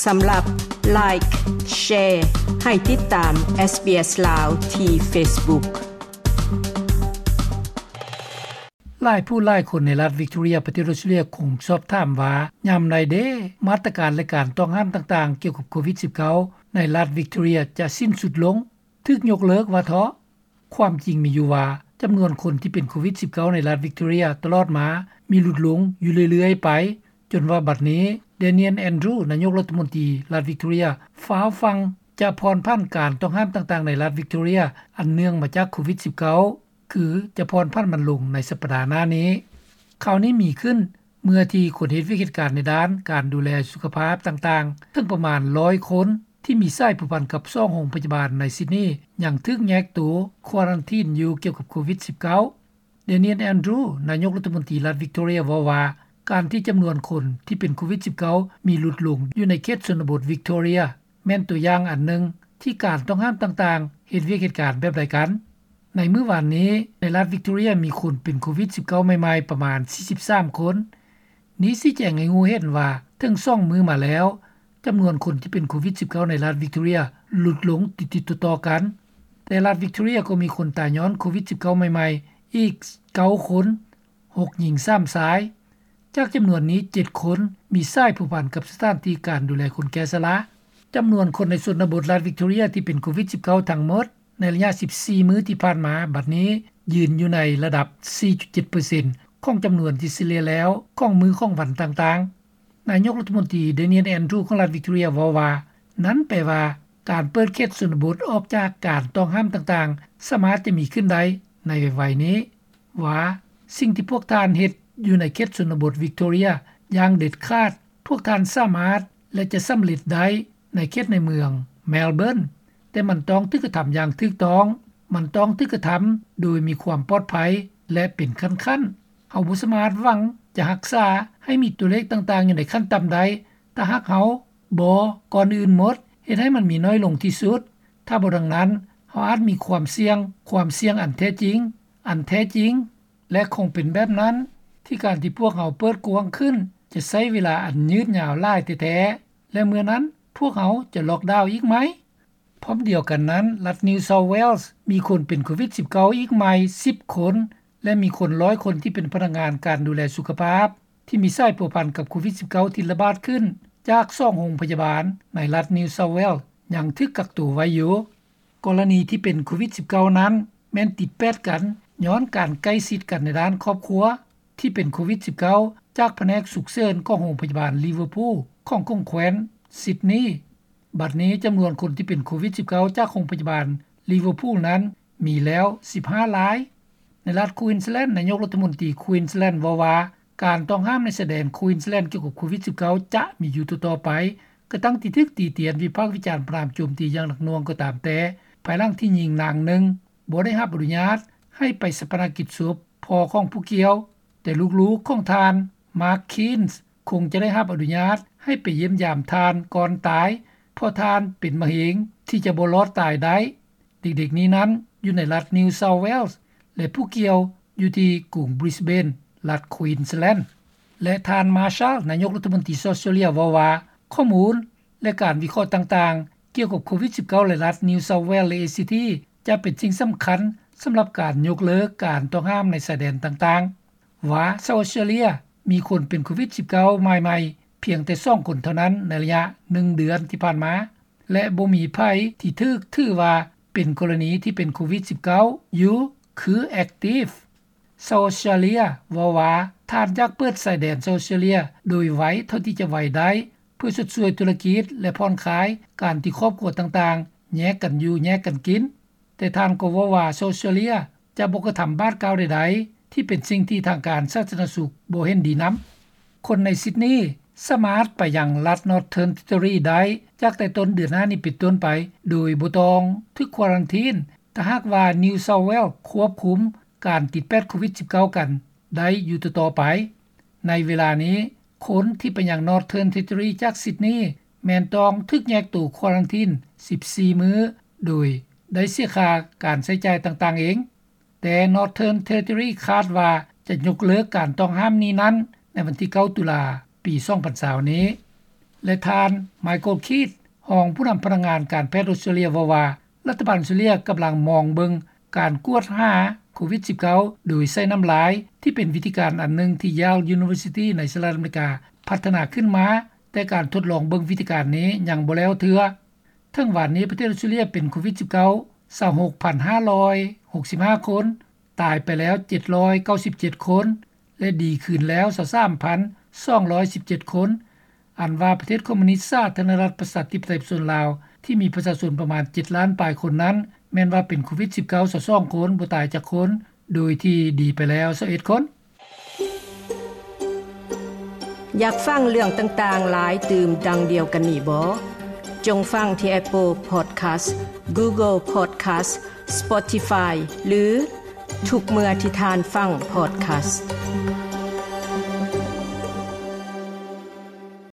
ສຳລັບ Like, Share ໃຫ້ຕິດຕາມ SBS ລາວ ທີ່ Facebook. ຫຼາຍຜູ້ຫຼາຍຄົນໃນລັດວິກຕໍເຣຍ ປະເທດອົດສະຕຣາເລຍ ຄົງສອບຖາມວ່າ ຍາມໃດເດ ມາດຕະການ ແລະ ການຕ້ອງຫ້າມຕ່າງໆ ກ່ຽວກັບໂຄວິດສິບເກົ້າ ໃນລັດວິກຕໍເຣຍ ຈະສິ້ນສຸດລົງ, ຖືກຍົກເລີກວ່າເທາະ? ຄວາມຈິງມີຢູ່ວ່າ ຈຳນວນຄົນທີ່ເປັນໂຄວິດສິບເກົ້າ ໃນລັດວິກຕໍເຣຍ ຕະຫຼອດມາ ມີຫຼຸດລົງຢູ່ເລື້ອຍໆໄປ, ຈົນວ່າບັດນີ້ Daniel Andrews ນາຍົກລັດຖະມົນຕີລັດວິກຕໍເຣຍ ຟ້າວຟັ່ງຈະຜ່ອນຜັນການຕ້ອງຫ້າມຕ່າງໆ ໃນລັດວິກຕໍເຣຍ ອັນເນື່ອງມາຈາກໂຄວິດສິບເກົ້າ ຄືຈະຜ່ອນຜັນມັນລົງໃນສັບປະດາໜ້ານີ້. ຂ່າວນີ້ມີຂຶ້ນເມື່ອທີ່ຄົນເຮັດວຽກເຮັດການໃນດ້ານການດູແລສຸຂະພາບຕ່າງໆ ເຖິງປະມານຮ້ອຍຄົນ ທີ່ມີສາຍພົວພັນກັບສອງໂຮງພະຍາບານໃນຊິດນີ ຍັງຖືກແຍກໂຕຄວາຣັນທີນຢູ່ກ່ຽວກັບໂຄວິດສິບເກົ້າ. Daniel Andrews ນາຍົກລັດຖະມົນຕີລັດວິກຕໍເຣຍ ເວົ້າວ່າ ການທີ່ຈຳນວນຄົນທີ່ເປັນໂຄວິດສິບເກົ້າ ມີຫຼຸດລົງຢູ່ໃນເຂດຊົນນະບົດວິກຕໍເຣຍ ແມ່ນຕົວຢ່າງອັນໜຶ່ງທີ່ການຕ້ອງຫ້າມຕ່າງໆ ເຮັດວຽກເຮັດການແບບໃດກັນ. ໃນມື້ວານນີ້ ໃນລັດວິກຕໍເຣຍ ມີຄົນເປັນໂຄວິດສິບເກົ້າໃໝ່ໆ ປະມານສີ່ສິບສາມຄົນ. ນີ້ຊີ້ແຈງໃຫ້ຮູ້ເຫັນວ່າ ເຖິງສອງມື້ມາແລ້ວ ຈຳນວນຄົນທີ່ເປັນໂຄວິດສິບເກົ້າ ໃນລັດວິກຕໍເຣຍ ຫຼຸດລົງຕິດໆຕໍ່ໆກັນ, ແຕ່ລັດວິກຕໍເຣຍກໍມີຄົນຕາຍຍ້ອນໂຄວິດສິບເກົ້າໃໝ່ໆອີກເກົ້າຄົນ, ຫົກຍິງ ສາມຊາຍ. ຈາກຈຳນວນນີ້ ເຈັດຄົນມີສາຍພົວພັນກັບສະຖານທີ່ການດູແລຄົນແກ່ຊະລາ. ຈຳນວນຄົນໃນຊົນນະບົດລັດວິກຕໍເຣຍທີ່ເປັນໂຄວິດສິບເກົ້າທັງໝົດ ໃນໄລຍະສິບສີ່ມື້ທີ່ຜ່ານມາ ບັດນີ້ຢືນຢູ່ໃນລະດັບສີ່ຈຸດເຈັດເປີເຊັນ ຂອງຈຳນວນທີ່ສະເລ່ຍແລ້ວຂອງມື້ຂອງວັນຕ່າງໆ. ນາຍົກລັດຖະມົນຕີ Daniel Andrews ຂອງລັດວິກຕໍເຣຍ ເວົ້າວ່າ ນັ້ນແປວ່າ ການເປີດເຂດຊົນນະບົດອອກຈາກການຕ້ອງຫ້າມຕ່າງໆ ສາມາດຈະມີຂຶ້ນໄດ້ໃນໄວໆນີ້, ວ່າ ສິ່ງທີ່ພວກທ່ານເຮັດຢູ່ໃນເຂດຊົນນະບົດວິກຕໍເຣຍ ຢ່າງເດັດຂາດ ພວກທ່ານສາມາດ ແລະ ຈະສຳເລັດໄດ້ໃນເຂດໃນເມືອງ Melbourne, ແຕ່ມັນຕ້ອງຖືກກະທຳຢ່າງຖືກຕ້ອງ, ມັນຕ້ອງຖືກກະທຳໂດຍມີຄວາມປອດໄພ ແລະ ເປັນຂັ້ນໆ. ເຮົາບໍ່ສາມາດຫວັງຈະຮັກສາໃຫ້ມີຕົວເລກຕ່າງໆຢູ່ໃນຂັ້ນຕ່ຳໄດ້ ຖ້າຫາກເຮົາບໍ່ ກ່ອນອື່ນໝົດ ເຮັດໃຫ້ມັນມີໜ້ອຍລົງທີ່ສຸດ. ຖ້າບໍ່ດັ່ງນັ້ນ ເຮົາອາດມີຄວາມສ່ຽງ, ຄວາມສ່ຽງອັນແທ້ຈິງ, ອັນແທ້ຈິງ ແລະ ຄົງເປັນແບບນັ້ນ ທີ່ການທີ່ພວກເຮົາເປີດກວ້າງຂຶ້ນ ຈະໃຊ້ເວລາອັນຍືດຍາວຫຼາຍແທ້ໆ ແລະ ເມື່ອນັ້ນ ພວກເຮົາຈະລັອກດາວອີກໃໝ່? ພ້ອມດຽວກັນນັ້ນ, ລັດ New South Wales ມີຄົນເປັນໂຄວິດສິບເກົ້າອີກໃໝ່ສິບຄົນ ແລະ ມີຄົນຮ້ອຍຄົນທີ່ເປັນພະນັກງານການດູແລສຸຂະພາບ ທີ່ມີສາຍພົວພັນກັບໂຄວິດສິບເກົ້າ ທີ່ລະບາດຂຶ້ນຈາກສອງໂຮງພະຍາບານໃນລັດ New South Wales ຍັງຖືກກັກໂຕໄວ້ຢູ່. ກໍລະນີທີ່ເປັນໂຄວິດສິບເກົ້ານັ້ນ ແມ່ນຕິດແປດກັນ ຍ້ອນການໃກ້ຊິດກັນໃນດ້ານຄອບຄົວ ທີ່ເປັນໂຄວິດສິບເກົ້າ ຈາກພະແນກສຸກເສີນຂອງໂຮງພະຍາບານ Liverpool ຂອງຂົງແຂວນຊິດນີ. ບັດນີ້ຈຳນວນຄົນທີ່ເປັນໂຄວິດສິບເກົ້າ ຈາກໂຮງພະຍາບານ Liverpool ນັ້ນມີແລ້ວສິບຫ້າລາຍ. ໃນລັດ Queensland ນາຍົກລັດຖະມົນຕີ Queensland ເວົ້າວ່າ ການຕ້ອງຫ້າມໃນຊາຍແດນ Queensland ກ່ຽວກັບໂຄວິດສິບເກົ້າ ຈະມີຢູ່ຕໍ່ໆໄປ ກະທັ່ງທີ່ຖືກຕີຕຽນ ວິພາກວິຈານ ປະນາມໂຈມຕີຢ່າງໜັກໜ່ວງກໍຕາມແຕ່ ພາຍຫຼັງທີ່ຍິງນາງໜຶ່ງບໍ່ໄດ້ຮັບອະນຸຍາດໃຫ້ໄປຊາປະນະກິດສົບພໍ່ຂອງຜູ້ກ່ຽວ, ແຕ່ລູກໆຂອງທ່ານ Mark Keanes ຄົງຈະໄດ້ຮັບອະນຸຍາດໃຫ້ໄປຢ້ຽມຢາມທ່ານກ່ອນຕາຍ ເພາະທ່ານເປັນມະເຮັງທີ່ຈະບໍ່ລອດຕາຍໄດ້. ເດັກໆນີ້ນັ້ນຢູ່ໃນລັດ New South Wales ແລະ ຜູ້ກ່ຽວຢູ່ທີ່ກຸງ Brisbane ລັດ Queensland. ແລະ ທ່ານ Marshall ນາຍົກລັດຖະມົນຕີ South Australia ເວົ້າວ່າ ຂໍ້ມູນ ແລະ ການວິເຄາະຕ່າງໆ ກ່ຽວກັບໂຄວິດສິບເກົ້າ ໃນລັດ New South Wales ແລະ ACT ຈະເປັນສິ່ງສຳຄັນສຳລັບການຍົກເລີກການຕ້ອງຫ້າມໃນຊາຍແດນຕ່າງໆ, ວ່າ South Australia ມີຄົນເປັນໂຄວິດສິບເກົ້າລາຍໃໝ່ພຽງແຕ່ສອງຄົນເທົ່ານັ້ນໃນໄລຍະໜຶ່ງເດືອນທີ່ຜ່ານມາ ແລະ ບໍ່ມີໃຜທີ່ຖືກຖືວ່າເປັນກໍລະນີທີ່ເປັນໂຄວິດສິບເກົ້າຢູ່ ຄື active. South Australia ເວົ້າວ່າ ທ່ານຢາກເປີດຊາຍແດນ South Australia ໂດຍໄວເທົ່າທີ່ຈະໄວໄດ້ ເພື່ອຊົດຊ່ວຍທຸລະກິດ ແລະ ຜ່ອນຄາຍການທີ່ຄອບຄົວຕ່າງໆແຍກກັນຢູ່ແຍກກັນກິນ. ແຕ່ທ່ານກໍເວົ້າວ່າ South Australia ຈະບໍ່ກະທຳບາດກ້າວໃດໆ ທີ່ເປັນສິ່ງທີ່ທາງການສາທາລະນະສຸກບໍ່ເຫັນດີນຳ. ຄົນໃນຊິດນີສາມາດໄປຍັງລັດ Northern Territory ໄດ້ຈາກແຕ່ຕົ້ນເດືອນໜ້ານີ້ເປັນຕົ້ນໄປ ໂດຍບໍ່ຕ້ອງຖືກຄວາຣັນທີນ ຖ້າຫາກວ່າ New South Wales ຄວບຄຸມການຕິດແປດໂຄວິດສິບເກົ້າກັນໄດ້ຢູ່ຕໍ່ໆໄປ. ໃນເວລານີ້ ຄົນທີ່ໄປຍັງ Northern Territory ຈາກຊິດນີ ແມ່ນຕ້ອງຖືກແຍກໂຕຄວາຣັນທີນສິບສີ່ມື້ ໂດຍໄດ້ເສຍຄ່າການໃຊ້ຈ່າຍຕ່າງໆເອງ. ແຕ່ Northern Territory ຄາດວ່າຈະຍົກເລີກການຕ້ອງຫ້າມນີ້ນັ້ນໃນວັນທີເກົ້າ ຕຸລາ ປີສອງພັນຊາວນີ້. ແລະ ທ່ານ Michael Keith ຮອງຜູ້ນຳພະນັກງານການແພດອົດສະຕຣາເລຍ ເວົ້າວ່າ ລັດຖະບານອົດສະຕຣາເລຍກຳລັງມອງເບິ່ງການກວດຫາໂຄວິດ-19 ໂດຍໃຊ້ນ້ຳລາຍ ທີ່ເປັນວິທີການອັນໜຶ່ງທີ່ Yale University ໃນສະຫະລັດອາເມລິກາ ພັດທະນາຂຶ້ນມາ, ແຕ່ການທົດລອງເບິ່ງວິທີການນີ້ຍັງບໍ່ແລ້ວເທື່ອ. ເຖິງວານນີ້ປະເທດອົດສະຕຣາເລຍເປັນໂຄວິດ-19 ຊາວຫົກພັນຫ້າຮ້ອຍຫົກສິບຫ້າຄົນ, ຕາຍໄປແລ້ວເຈັດຮ້ອຍເກົ້າສິບເຈັດຄົນ ແລະ ດີຂຶ້ນແລ້ວຊາວສາມພັນສອງຮ້ອຍສິບເຈັດຄົນ. ອັນວ່າປະເທດຄອມມູນິດສາທາລະນະລັດປະຊາທິປະໄຕປະຊາຊົນລາວ ທີ່ມີປະຊາຊົນປະມານເຈັດລ້ານປາຍຄົນນັ້ນ ແມ່ນວ່າເປັນໂຄວິດ-19 ຊາວສອງຄົນ, ບໍ່ຕາຍຈັກຄົນ, ໂດຍທີ່ດີໄປແລ້ວຊາວເອັດຄົນ. ຢາກຟັງເລື່ອງຕ່າງໆຫຼາຍຕື່ມດັ່ງດຽວກັນນີ້ບໍ? ຈົ່ງຟັງທີ່ Apple Podcast, Google Podcast, Spotify ຫຼື ທຸກເມື່ອທີ່ທ່ານຟັງ Podcast.